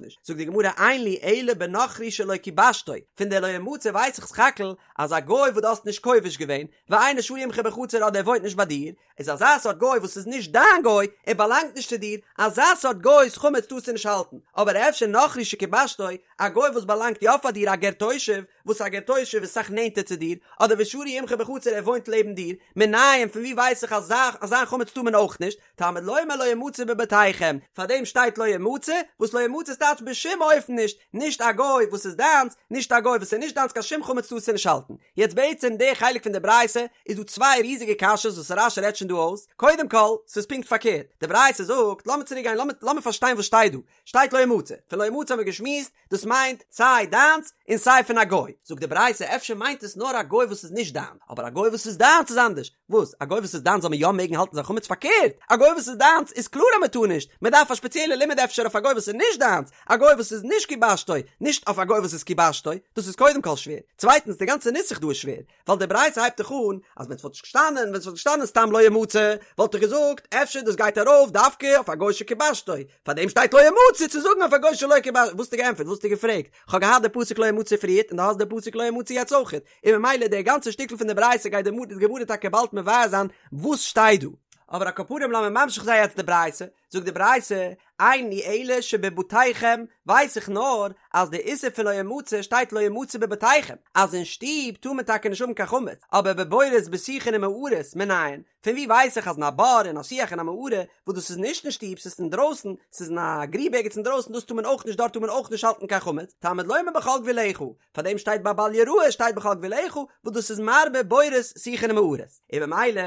נישט, זאגט די גמרא אין לי אלא בנכרי שלא כיבשתו, פון די לא ימצא ווייס איך סך הכל אז א גוי וואס דו האסט נישט כובש געווען, ואינו שרוי עמך בחצר אדער ער וואוינט נישט ביי דיר, איז אזא סארט גוי וואס איז נישט דיין גוי, ער באלאנגט נישט צו דיר, אזא סארט גוי'ס חמץ טארסטו נישט האלטן, אבער אפשר נכרי שכיבשתו, א גוי וואס באלאנגט יא פאר דיר א גר תושב, וואס א גר תושב איז אסאך נענטער צו דיר, אדער ושרוי עמך בחצר ער וואוינט לעבן דיר, מנין פון ווי ווייס איך אז זיין חמץ טאר מען אויך נישט, תלמוד לומר לא ימצא בבתיכם, פארדעם שטייט לא ימצא, וואס לא ימצא טייטש בשום אופן נישט, נישט א גוי וואס איז דיינס, נישט א גוי וואס איז נישט דיינס קיין שום חמץ טארסטו נישט האלטן. יעצט בעצם די חלק פון די ברייתא איז דא צוויי ריזיגע קשיות וואס רש"י רעדט שוין דא אויס, קודם כל, ס'איז פונקט פארקערט, די ברייתא זאגט, לאמיר צוריק גיין, לאמיר פארשטיין וואס שטייט דא, שטייט לא ימצא, פון לא ימצא האבן מיר געשמועסט, דאס מיינט סיי דיינס און סיי פון א גוי, זאגט די ברייתא אפשר מיינט עס נאר א גוי וואס איז נישט דיין, אבער א גוי וואס איז דיינס איז אנדערש, וואס? א גוי וואס איז דיינס זאל מען יא מעגן האלטן זיין חמץ? פארקערט, א גוי וואס איז דיינס איז קלאר אז מען טאר נישט, מען דארף א שפעציעלע לימוד אפשר אויף א גוי וואס איז נישט דיינס, א גוי וואס איז נישט כיבשתו, נישט אויף א גוי וואס איז כיבשתו, דאס איז קודם כל שווער, צווייטנס די גאנצע נוסח דא איז שווער, ווייל די ברייתא הייבט דאך אן אז ווען ס'וואלט נישט געשטאנען, ווען ס'וואלט געשטאנען סתם לא ימצא, וואלט איך געזאגט אפשר דאס גייט ארויף דווקא אויף א גוי שכיבשתו, פארדעם שטייט לא ימצא צו זאגן אויף א גוי שלא כיבשתו, וואס האסטו געענטפערט? וואס האסטו געפרעגט? כ'האב געהאט די פסוק לא ימצא פריערט און דו האסט די פסוק לא ימצא יעצט אויכעט, און ממילא די גאנצע שטיקל פון די ברייתא גייט די גמרא טאקע באלד מבאר זיין וואס שטייט דא. אבער על כל פנים לאמיר ממשיך זיין יעצט די ברייתא, זאגט די ברייתא, אין לי אלא שבבתיכם, ווייס איך נאר אז די איסור פון לא ימצא שטייט לא ימצא בבתיכם, אז אין שטוב טאר מען טאקע נישט האבן קיין חמץ, אבער בבורות בשיחין ומערות מנין, פון ווי ווייס איך אז אין א בור אין א שיח אין א מערה, וואס דאס איז נישט אין שטוב ס'איז אינדרויסן, ס'איז אין א גריב ערגעץ אינדרויסן דאס טאר מען אויך נישט דארט טאר מען אויך נישט האלטן קיין חמץ, תלמוד לומר בכל גבולך, פאר דעם שטייט ביי בל יראה שטייט בכל גבולך, וואס דאס איז מרבה בורות שיחין ומערות, און במילא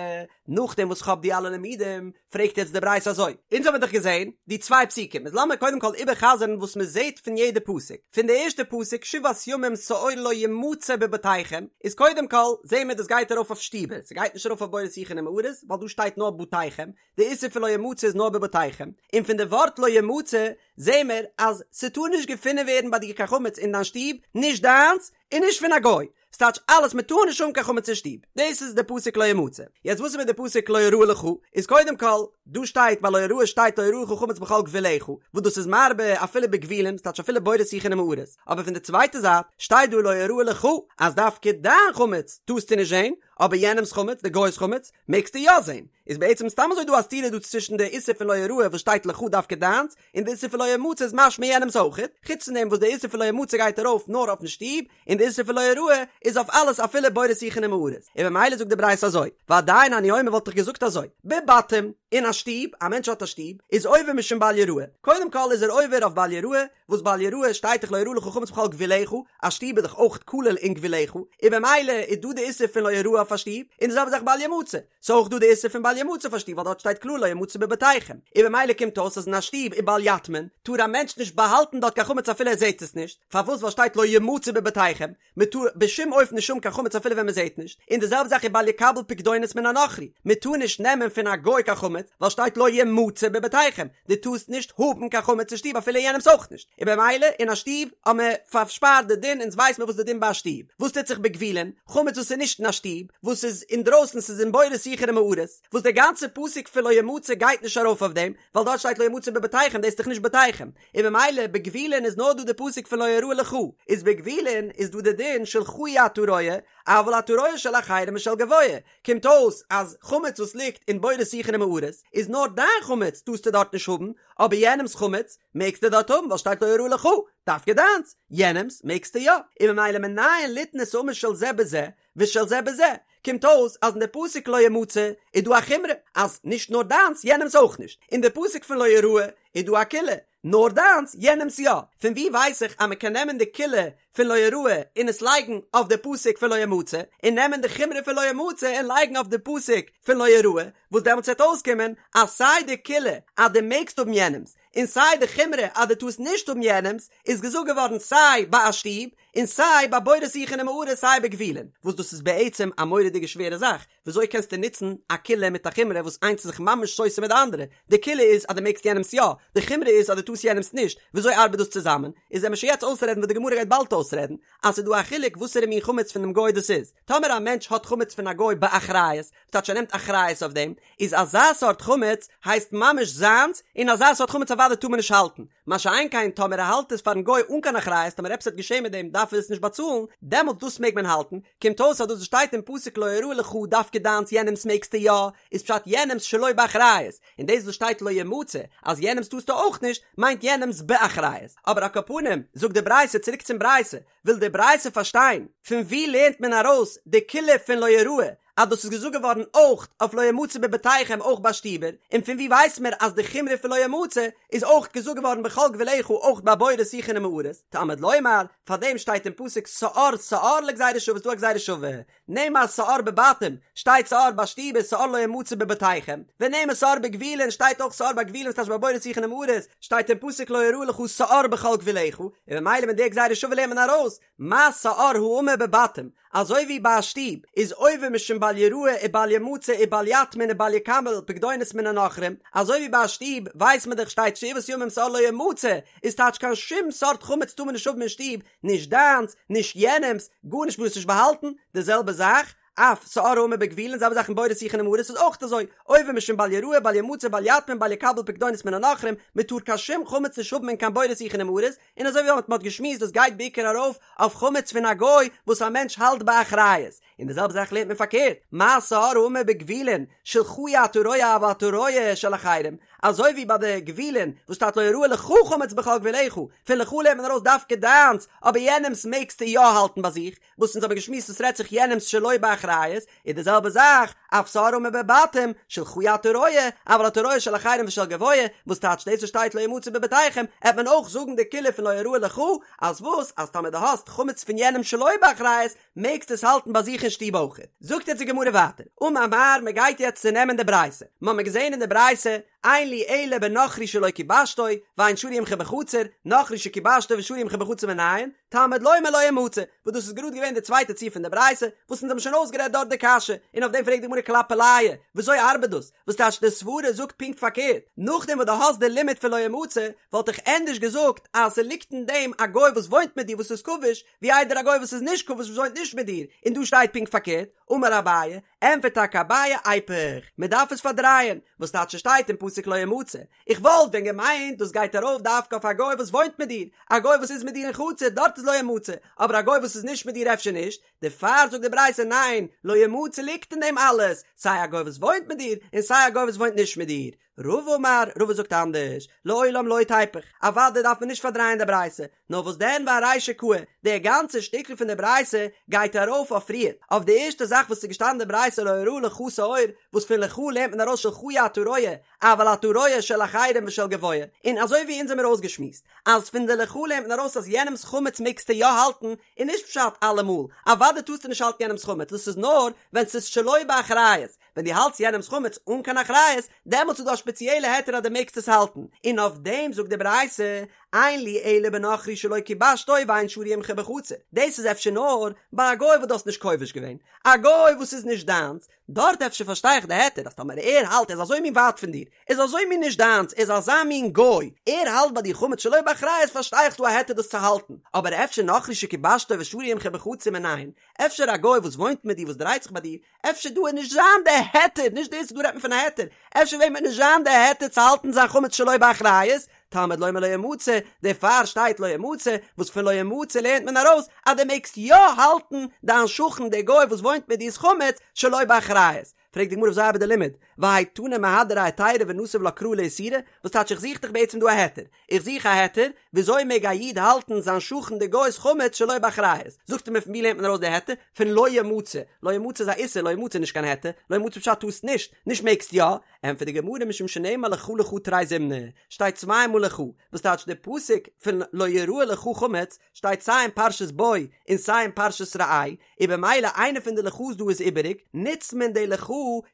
נאכדעם וואס כ'האב די אלע לימודים, פרעגט יעצט די ברייתא אזוי, אונז האבן האמיר דאך געזען די צוויי פסוקים, איז לאמיר קודם כל איבערחזר'ן וואס מען זעט פון יעדע פסוק. פון די ערשטע פסוק שבעת ימים שאור לא ימצא בבתיכם, איז קודם כל זעהן מיר דאס גייט ארויף אויף שטיבער, ס'גייט נישט ארויף אויף בורות שיחין ומערות, ווייל דא שטייט נאר בתיכם, די איסור פון לא ימצא איז נאר בבתיכם, און פון די ווארט לא ימצא זעהן מיר אז ס'טאר נישט געפונען ווערן ביי דיר קיין חמץ אין דיין שטוב, נישט דיינס און נישט פון א גוי, ס'טייטש אלעס מען טאר נישט האבן קיין חמץ אין שטוב, דאס איז די פסוק לא ימצא. יעצט וואס איז מיט די פסוק לא יראה לך? איז קודם כל, דא שטייט ביי לא יראה שטייט לא יראה לך חמץ בכל גבולך, וואס דאס איז מרבה אפילו בגבולים, ס'טייטש אפילו בורות שיחין ומערות, אבער פון די צווייטע זייט שטייט דא לא יראה לך אז דווקא דיין חמץ טארסטו נישט זען, אבער יענעמ'ס חמץ, די גוי'ס חמץ, מעגסטו יא זען. איז בעצם סתם אזוי דא א סתירה דא צווישן די איסור פון לא יראה וואס שטייט לך דווקא דיינס, און די איסור פון לא ימצא איז משמע יענעמ'ס אויכעט, חוץ פון דעם וואס די איסור פון לא ימצא גייט ארויף נאר אויפן שטוב, און די איסור פון לא יראה איז אויף אלעס אפילו בורות שיחין ומערות, און ממילא זאגט די ברייתא אזוי, ועדיין אני אומר וואלט איך געזאגט אזוי, בבתים, אין א שטוב, א מענטש האט א שטוב, איז עובר משום בל יראה, קודם כל איז ער עובר אויף בל יראה, וואס בל יראה שטייט דאך לא יראה לך חמץ בכל גבולך, א שטוב איז דאך אויך כולל אין גבולך, און ממילא איז דא די איסור פון לא יראה אויף א שטוב, און די זעלבע זאך בל ימצא, ס'איז אויך דא די איסור פון בל ימצא אויף א שטוב ווייל דארט שטייט קלאר לא ימצא בבתיכם, און במילא קומט אויס אז אין א שטוב ובל יטמין טאר א מענטש נישט באהאלטן דארט קיין חמץ אפילו ער זעט עס נישט, פארוואס ווייל שטייט לא ימצא בבתיכם, מען טאר בשום אופן נישט האבן קיין חמץ אפילו ווען מען זעט נישט, און די זעלבע זאך ובל יקבל פקדונות מן הנכרי, מען טאר נישט נעמען פון א גוי קיין חמץ ווייל שטייט לא ימצא בבתיכם, דו טארסט נישט האבן קיין חמץ אין שטוב אפילו יענעמס אויך נישט, און במילא אין א שטוב האט מען פארשפארט די דין אונז ווייס מען וואס די דין ביי א שטוב, וואס טוט זיך בגבולין, חמץ וואס איז נישט אין א שטוב, וואס איז אינדרויסן ס'איז אין בורות שיחין ומערות, וואס דער גאנצער פסוק פון לא ימצא גייט נישט ארויף אויף דעם, ווייל דארט שטייט לא ימצא בבתיכם דאס איז דאך נישט בתיכם, און במילא בגבולין איז נאר דא די פסוק פון לא יראה לך, איז בגבולין איז דא די דין שלך אי אתה רואה, אבל אתה רואה של אחרים ושל גבוה, קומט אויס אז חמץ וואס ליגט אין בורות שיחין ומערות איז נאר דיין חמץ טארסטו דארט נישט האבן, אבער יענעמס חמץ מעגסטו דארט האבן ווייל שטייט לא יראה לך, דווקא דיינס, יענעמס מעגסטו יא, און ממילא מנין ליתן את האמור של זה בזה ושל זה בזה, קומט אויס אז אין די פסוק לא ימצא איז דא א חומרא אז נישט נאר דיינס יענעמס אויך נישט, אין די פסוק פון לא יראה איז דא א קולא נאר דיינס, יענעמס יא. פון וואו ווייס איך אז מען קען נעמען די קולא פון לא יראה און עס לייגן אויף די פסוק פון לא ימצא, און נעמען די חומרא פון לא ימצא און לייגן אויף די פסוק פון לא יראה, וואס דעמאלטס וועט אויסקומען אז סיי די קולא אז דו מעגסט האבן יענעמס, און סיי די חומרא אז דו טארסט נישט האבן יענעמס, איז געזאגט געווארן סיי ביי א שטוב, און סיי ביי בורות שיחין ומערות סיי בגבולין, וואס דאס איז בעצם א מורא'דיגע שווערע זאך, וויאזוי קענסטו נוצן א קולא מיט א חומרא וואס איינס איז זיך ממש סותר מיט די אנדערע? די קולא איז אז דו מעגסט יענעמס יא, די חומרא איז אז דו טארסט יענעמס נישט, וויאזוי ארבעט דאס צוזאמען? איז וועמיר שוין יעצט אויסרעדן וואס די גמרא גייט באלד אויסרעדן, אז ס'איז דא א חילוק וואסערע מין חמץ פון דעם גוי דאס איז. טאמער א מענטש האט חמץ פון א גוי באחריות, ס'טייטש ער נעמט אחריות אויף דעם, איז אזא סארט חמץ הייסט ממש זיינס, און אזא סארט חמץ אוודאי טאר מען נישט האלטן. מה שאין כן טאמער ער האלט עס פארן גוי אן קיין אחריות טאמער עפעס וועט געשען מיט דעם דארף ער עס נישט באצאלן, דעמאלטס דאס מעג מען האלטן, קומט אויס אז דאס וואס שטייט אין פסוק לא יראה לך דווקא דיינס יענעמס מעגסטו יא, איז פשט יענעמס שלא באחריות, און דאס וואס שטייט לא ימצא אז יענעמס טארסטו אויך נישט, מיינט יענעמס באחריות. אבער על כל פנים, זאגט די ברייתא צוריק צום ברייתא, וויל די ברייתא פארשטיין, פון וואו לערנט מען ארויס די קולא פון לא יראה, אז דאס איז געזאגט געווארן אויך אויף לא ימצא בבתיכם אויך ביי שטיבער, און פון וואו ווייסט מען אז די חומרא פון לא ימצא איז אויך געזאגט געווארן בכל גבולך אויך ביי בורות שיחין ומערות, תלמוד לומר, פאר דעם שטייט אין פסוק שאור שאור לגזירה שווה איז דא א גזירה שווה, נאמר שאור בבתים, שטייט שאור ביי שטיבער שאור לא ימצא בבתיכם, ונאמר שאור בגבולין שטייט אויך שאור ביי גבולין ס'טייטש ביי בורות שיחין ומערות, שטייט אין פסוק לא יראה לך שאור בכל גבולך, און ממילא מיט די גזירה שווה לערנט מען ארויס מה שאור האמור בבתים, אזוי ווי ביי א שטוב איז עובר משום בל יראה ובל ימצא ובל יטמין ובל יקבל פקדונות מן הנכרים, אזוי ווי ביי א שטוב ווייסט מען דאך שטייט שבעת ימים שאור לא ימצא, איז טייטש קיין שום סארט חמץ טאר מען נישט האבן אין שטוב, נישט דיינס, נישט יענעמס, גארנישט מ'טאר עס נישט באהאלטן, די זעלבע זאך, אף שאור האמור בגבולין, זעלבע זאך אין בורות שיחין ומערות איז אויך אזוי, עובר משום בל יראה בל ימצא בל יטמין בל יקבל פקדונות מן הנכרים, מען טאר קיין שום חמץ נישט האבן אין קיין בורות שיחין ומערות, און אזוי ווי מען האט געשמועסט דאס גייט בעיקר ארויף אויף חמץ פון א גוי וואס א מענטש האלט באחריות, און די זעלבע זאך לערנט מען פארקערט, מה שאור האמור בגבולין, שלך אי אתה רואה אבל אתה רואה של אחרים, אזוי ווי ביי די גבולין וואס שטייט לא יראה לך חמץ בכל גבולך, פון לך לערנט מען ארויס דווקא דיינס, אבער יענעמס מעגסטו יא האלטן ביי זיך, וואס אונז האבן געשמועסט עס רעדט זיך יענעמס שלא באחריות, איז די זעלבע זאך, אף שאור האמור בבתים, שלך אי אתה רואה, אבל אתה רואה של אחרים ושל גבוה, וואס טייטש דאס וואס שטייט לא ימצא בבתיכם, עט מען אויך זאגן די קולא פון לא יראה לך, אז וואס, אז טאמער דו האסט חמץ פון יענעם שלא באחריות, מעגסט עס האלטן ביי זיך אין שטוב אויכעט. זאגט יעצט די גמרא ווייטער, אמר מר, מען גייט יעצט צונעמען די ברייתא, מ'האמיר געזען אין די ברייתא, אין לי אלא בנכרי שלא כיבשתו, ואין שרוי עמך בחצר, נכרי שכיבשתו ושרוי עמך בחצר מנין, תלמוד לומר לא ימצא, וואס דאס איז גראד געווען די צווייטע ציור פון די ברייתא, וואס אונז האבן שוין אויסגערעדט דארט די קשיא, און אויף דעם פרעגט די גמרא כלפי עליה, וויאזוי ארבעט דאס? וואס טייטש די סברה זאגט פונקט פארקערט, נאכדעם וואס דו האסט די לימוד פון לא ימצא, וואלט איך ענדערש געזאגט אז ס'ליגט אין דעם א גוי וואס וואוינט מיט דיר וואס איז כבוש, ווי איידער א גוי וואס איז נישט כבוש וואס וואוינט נישט מיט דיר, און דא שטייט פונקט פארקערט, אמר אביי, ענטפערט טאקע אביי איפוך, מען דארף עס פארדרייען, וואס טייטש ס'שטייט אין פסוק לא ימצא, איך וואלט ווען געמיינט דאס גייט ארויף דווקא אויף א גוי וואס וואוינט מיט דיר, א גוי וואס איז מיט דיר אין חצר דארט איז לא ימצא, אבער א גוי וואס איז נישט מיט דיר אפשר נישט, דערפאר זאגט די ברייתא ניין, לא ימצא ליגט אין דעם אלעס, סיי א גוי וואס וואוינט מיט דיר, און סיי א גוי וואס וואוינט נישט מיט דיר. רבא אמר, רבא זאגט אנדערש, לעולם לא תיפוך, אוודאי דארף מען נישט פארדרייען די ברייתא, נאר וואס דען וארישא קאי, די גאנצע שטיקל פון די ברייתא גייט ארויף אויף פריער, אויף די ערשטע זאך וואס איז געשטאנען אין די ברייתא לא יראה לך שאור, וואס פון לך לערנט מען ארויס שלך אי אתה רואה, אבל אתה רואה של אחרים ושל גבוה, און אזוי ווי אונז האמיר אויסגעשמועסט, אז פון די לך לערנט מען ארויס אז יענעמ'ס חמץ מעגסטו יא האלטן, איז נישט פשט אלעמאל, אוודאי טארסטו נישט האלטן יענעמ'ס חמץ, דאס איז נאר ווען ס'איז שלא באחריות, ווען דו האלטסט יענעמ'ס חמץ אן קיין אחריות, דעמאלטס איז דא א שפעציעלע היתר אז דו מעגסט עס האלטן, און אויף דעם זאגט די ברייתא, אין לי אלא בנכרי שלא כיבשתו ואין שרוי עמך בחצר, דאס איז אפשר נאר ביי א גוי וואס דו האסט נישט כובש געווען, א גוי וואס איז נישט דיינס, דארט אפשר פארשטיי איך די היתר אז טאמער ער האלט ער איז אזוי מין ווייט פון דיר, ער איז אזוי מין נישט דיינס, ער איז אזא מין גוי, ער האלט ביי דיר חמץ שלא באחריות פארשטיי איך ס'דא א היתר דאס צו האלטן, אבער אפשר נכרי שכיבשתו ושרוי עמך בחצר מנין, אפשר א גוי וואס וואוינט מיט דיר וואס דרייט זיך ביי דיר, אפשר דא וועט נישט זיין די היתר, נישט דאס דא רעדט מען פון א היתר, אפשר וועט מען נישט זיין די היתר צו האלטן זיין חמץ שלא באחריות, תלמוד לומר לא ימצא, דערפאר שטייט לא ימצא, וואס פון לא ימצא לערנט מען ארויס אז דו מעגסט יא האלטן דיין שכן דער גוי וואס וואוינט מיט דיר'ס חמץ שלא באחריות. פרעגט די גמרא וויאזוי ארבעט די לימוד, והאי תנא מהדרי היתירא ונסיב לה קרא לאיסורא, וואס טייטש איך זוך דאך בעצם דא א היתר, איך זוך א היתר, וויאזוי מעג א איד האלטן זיין שכן די גוי'ס חמץ שלא באחריות? זאגט ער מיר פון ווי לערנט מען ארויס די היתר? פון לא ימצא, לא ימצא איז א איסור, לא ימצא איז נישט קיין היתר, לא ימצא פשט טארסט נישט, נישט מעגסט יא, ענטפערט די גמרא משום שנאמר לך לך תרי זימני, שטייט צוויי מאל לך, וואס טייטש די פסוק פון לא יראה לך חמץ שטייט סיי אין פרשת בא און סיי אין פרשת ראה, און במילא איינע פון די לך'ס דא איז איבעריג, נוצט מען די לך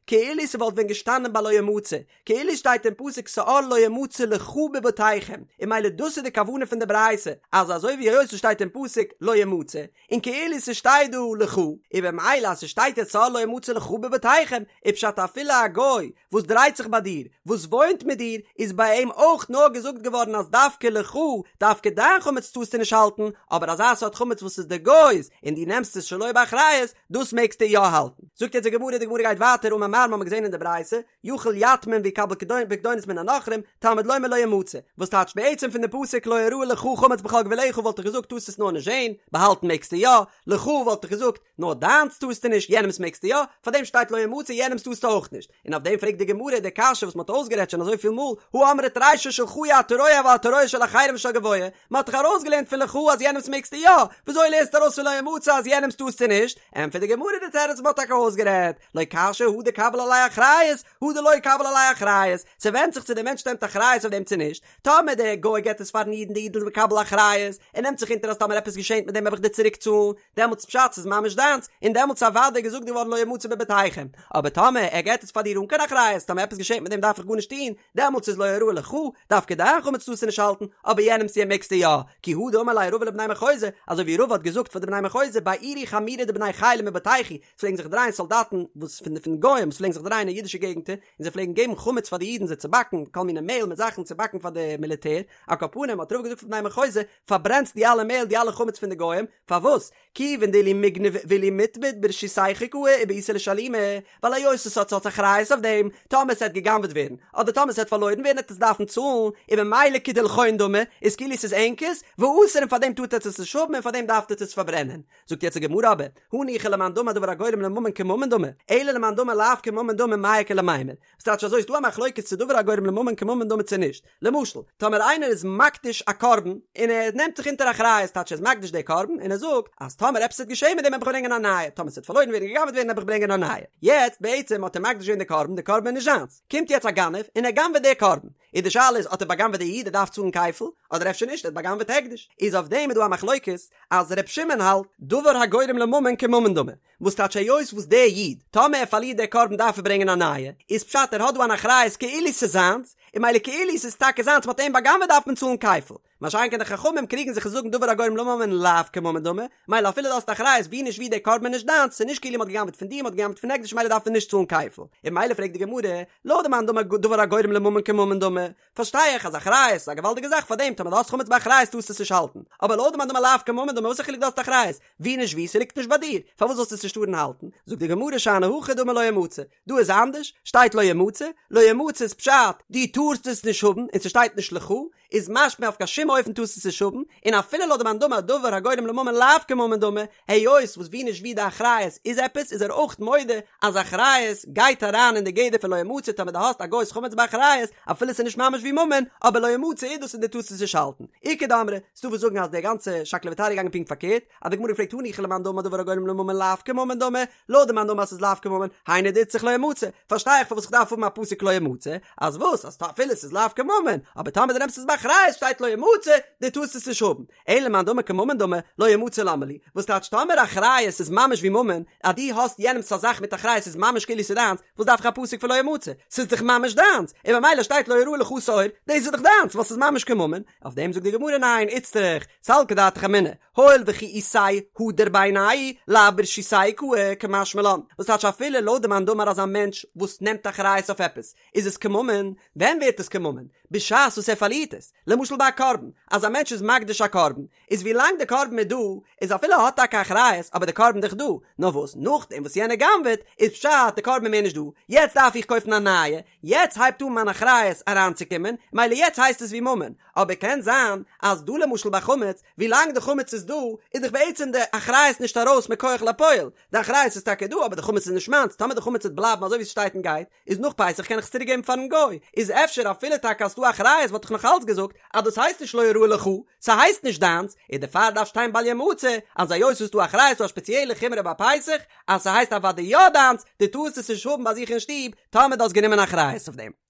כאילו ס'וואלט ווען געשטאנען ביי לא ימצא, כאילו שטייט אין פסוק שאור לא ימצא לך בבתיכם, און ממילא דאס איז די כוונה פון די ברייתא, אז אזוי ווי היות ס'שטייט אין פסוק לא ימצא, און כאילו ס'שטייט דא לך, און במילא אז ס'שטייט יעצט שאור לא ימצא לך בבתיכם, איז פשט אפילו א גוי וואס דרייט זיך ביי דיר, וואס וואוינט מיט דיר, איז ביי אים אויך נאר געזאגט געווארן אז דווקא לך, דווקא דיין חמץ טארסטו נישט האלטן, אבער אזא סארט חמץ וואס איז די גוי'ס, און דו נעמסט עס שלא באחריות, דאס מעגסטו יא האלטן. זאגט יעצט די גמרא, די גמרא גייט ווייטער, אמר מר, מ'האמיר געזען אין די ברייתא, יכול יטמין ויקבל פקדונות מן הנכרים, תלמוד לומר לא ימצא, וואס טייטשט בעצם פון די פסוק לא יראה לך חמץ בכל גבולך וואלט איך געזאגט טארסט עס נאר נישט זען, באהאלטן מעגסטו יא, לך וואלט איך געזאגט נאר דיינס טארסטו נישט יענעמס מעגסטו יא, פארדעם שטייט לא ימצא יענעמס טארסטו אויך נישט, און אויף דעם פרעגט די גמרא די קשיא וואס מען האט אויסגערעדט שוין אזויפיל מאל, הא אמרת רישא שלך אי אתה רואה אבל אתה רואה של אחרים ושל גבוה, מען האט דאך ארויסגעלערנט פון לך אז יענעמס מעגסטו יא, וויאזוי לערנסטו ארויס פון לא ימצא אז יענעמס טארסטו נישט? ענטפערט די גמרא די תירוץ מען האט טאקע אויסגערעדט, לא קשיא הא דקביל עליה אחריות, הא דלא קביל עליה אחריות, ס'ווענדט זיך צו דער מענטש נעמט אחריות אויף דעם צו נישט, טאמער דער גוי געט עס פארן איד און דער איד איז מקבל אחריות, ער נעמט זיך אונטער אז טאמער עפעס געשענט מיט דעם וועל איך דיר צוריק צאלן, דעמאלטס פשט ס'איז ממש דיינס, און דעמאלטס אוודאי געזאגט געווארן לא ימצא בבתיכם, אבער טאמער ער געט עס פאר דיר אן קיין אחריות, טאמער עפעס געשענט מיט דעם דארף איך גארנישט טון, דעמאלטס איז לא יראה לך, דווקא דיין חמץ טארסטו נישט האלטן, אבער יענעמס יא מעגסטו יא, כי הא דאמר ליה רבא לבני מחוזא, אזוי ווי רבא האט געזאגט פאר די בני מחוזא בעירו חמירי דבני חילא מבתייכו, ס'פלעגן זיך דרייען סאלדאטן וואס פון די פון גוים וואס פלעגן זיך דרייען אין אידישע געגנטער, און זיי פלעגן געבן חמץ פאר די אידן זיי צו באקן, כל מיני מעהל מיט זאכן צו באקן פאר די מיליטער, על כל פנים האט רבא געזאגט פאר בני מחוזא, פארברענטס די אלע מעהל די אלע חמץ פון די גוים, פארוואס? כיוון דאילו מיגנב ואילו מיטבד ברשותייכו קאי ובעיתו לשלומי, ווייל היות עס האט האט אחריות אויף דעם, טאמער עס וועט גע'גנב'עט ווערן, אדער טאמער עס וועט פארלוירן ווערן וועט עס דארפן צאלן, און ממילא כדילכון דמי, איז כאילו עס איז ענקערס, ואסור און פארדעם טארט עטס עס נישט האבן און פארדעם דארפט עטס עס פארברענען. זאגט יעצט די גמרא אבער, הניחא למאן דאמר דבר הגורם לממון כממון דמי, אלא למאן דאמר לאו כממון דמי מאי איכא למימר, וואס טייטש אזוי איז דא א מחלוקת צו דבר הגורם לממון כממון דמי צו נישט, למשל, טאמער איינער איז מקדיש א קרבן און ער נעמט זיך אונטער אחריות טייטש ער איז מקדיש די קרבן און ער זאגט אז טאמער עפעס וועט געשען מיט דעם וועל איך ברענגען א נייע, טאמער ס'וועט פארלוירן ווערן גע'גנב'עט ווערן וועל איך ברענגען א נייע. יעצט בעצם האט ער מקדיש געווען די קרבן, די קרבן איז נישט זיינס, קומט יעצט א גנב און ער גנב'עט די קרבן, איז די שאלה איז האט ער בא'גנב'עט די איד ער דארף צאלן כפל, אדער אפשר נישט ער האט בא'גנב'עט הקדש, איז אויף דעם איז דא א מחלוקת אז ר' שמעון האלט דבר הגורם לממון כממון דמי, וואס טייטש היות וואס דער איד, טאמער ער פארלירט דער קרבן דארף ער ברענגען א נייע, איז פשט ער האט דא אן אחריות כאילו ס'איז זיינס, און ממילא כאילו ס'איז טאקע זיינס מ'האט אים בא'גנב'עט דארף מען צאלן כפל. מה שאין כן די חכמים קריגן זיך און זאגן דבר הגורם לממון לאו כממון דמי, מילא אפילו דו האסט אחריות ווי נישט ווי דער קרבן איז נישט דיינס, ס'איז נישט כאילו מ'האט גע'גנב'עט פון דיר מ'האט גע'גנב'עט פון הקדש מילא דארף מען נישט צאלן כפל. און מילא פרעגט די גמרא, לויט די מאן דאמר דבר הגורם לממון כממון דמי, פארשטיי איך אז אחריות איז א געוואלדיגע זאך פאר דעם טאמער דו האסט חמץ באחריות טארסטו עס נישט האלטן, אבער לויט די מאן דאמר לאו כממון דמי וואס א חילוק דו האסט אחריות, ווי נישט ווי ס'ליגט נישט ביי דיר, פארוואס זאלסטו עס נישט טארן האלטן? זאגט די גמרא שאני הכא דאמר לא ימצא, דא איז אנדערש, שטייט לא ימצא, לא ימצא איז פשט דו טארסט עס נישט האבן און ס'שטייט נישט לך, איז משמע אויף קיין שום אופן טארסטו עס נישט האבן, און אפילו לויט די מאן דאמר דבר הגורם לממון לאו כממון דמי, היות וואס ווי נישט ווי די אחריות איז עפעס איז ער אויך מודה אז אחריות גייט אריין אין די גדר פון לא ימצא טאמער דו האסט א גוי'ס חמץ באחריות אפילו ס'איז נישט ממש ווי ממון אבער לא ימצא איז דאס און דו טארסט עס נישט האלטן. איכא דאמרי, ס'דא וואס זאגן אז די גאנצע שקלא וטריא איז געגאנגען פונקט פארקערט, אז די גמרא פרעגט הניחא למאן דאמר דבר הגורם לממון לאו כממון דמי, לויט די מאן דאמר אז ס'איז לאו כממון, היינו דאיצטריך לא ימצא, פארשטיי איך פארוואס איך דארף האבן א פסוק לא ימצא, אז וואס אז אפילו ס'איז לאו כממון, אבער טאמער דו נעמסט עס באחריות שטייט לא ימצא, דו טארסט עס נישט האבן. אלא למאן דאמר כממון דמי, לא ימצא למה לי, וואס טייטש טאמער אחריות איז ממש ווי ממון, אז דו האסט יענעמס א זאך מיט אחריות איז ממש כאילו ס'איז דיינס, וואס דארף איך א פסוק פון לא ימצא, ס'איז דאך ממש דיינס, און ממילא שטייט לא יראה לך שאור, דאס איז דאך דיינס ווייל ס'איז ממש כממון, אויף דעם זאגט די גמרא ניין, איצטריך, סלקא דעתך אמינא, הואיל וכי איתיה הדר בעיניה, לאו ברשותיה קאי, קמשמע לן, וואס טייטש אפילו לויט די מאן דאמר אז א מענטש וואס נעמט אחריות אויף עפעס, איז עס כממון, ווען ווערט עס כממון? בשעת וואס ער פארלירט עס, למשל ביי א קרבן, אז א מענטש איז מקדיש א קרבן, איז ווי לאנג די קרבן איז דא, איז אפילו ער האט טאקע אחריות, אבער די קרבן דאך דא, נאר וואס נאכדעם וואס יענער גנב'עט, איז פשט די קרבן איז מער נישט דא, יעצט דארף איך קויפן א נייע, יעצט הייבט אן מיין אחריות אריינצוקומען, מילא יעצט הייסט עס ווי ממון, אבער קען זיין אז דא למשל ביי חמץ, ווי לאנג די חמץ איז דא, איז דאך בעצם די אחריות נישט ארויס מכח לפועל, די אחריות איז טאקע דא אבער די חמץ איז נישט מיינס, טאמער די חמץ וועט בלייבן אזוי ווי ס'שטייט און גייט, איז נאך פסח קען איך עס צוריק געבן פארן גוי, איז אפשר אפילו טאקע אז ס'דא אחריות וואלט איך נאך אלץ געזאגט אז דאס הייסט נישט לא יראה לך, ס'הייסט נישט דיינס, און דערפאר דארף שטיין בל ימצא, אז היות ס'איז דא אחריות ס'דא א שפעציעלע חומרא ביי פסח, אז ס'הייסט אוודאי יא דיינס, דו טארסט עס נישט האבן ביי זיך אין שטוב, טאמער דו האסט גענומען אחריות אויף דעם.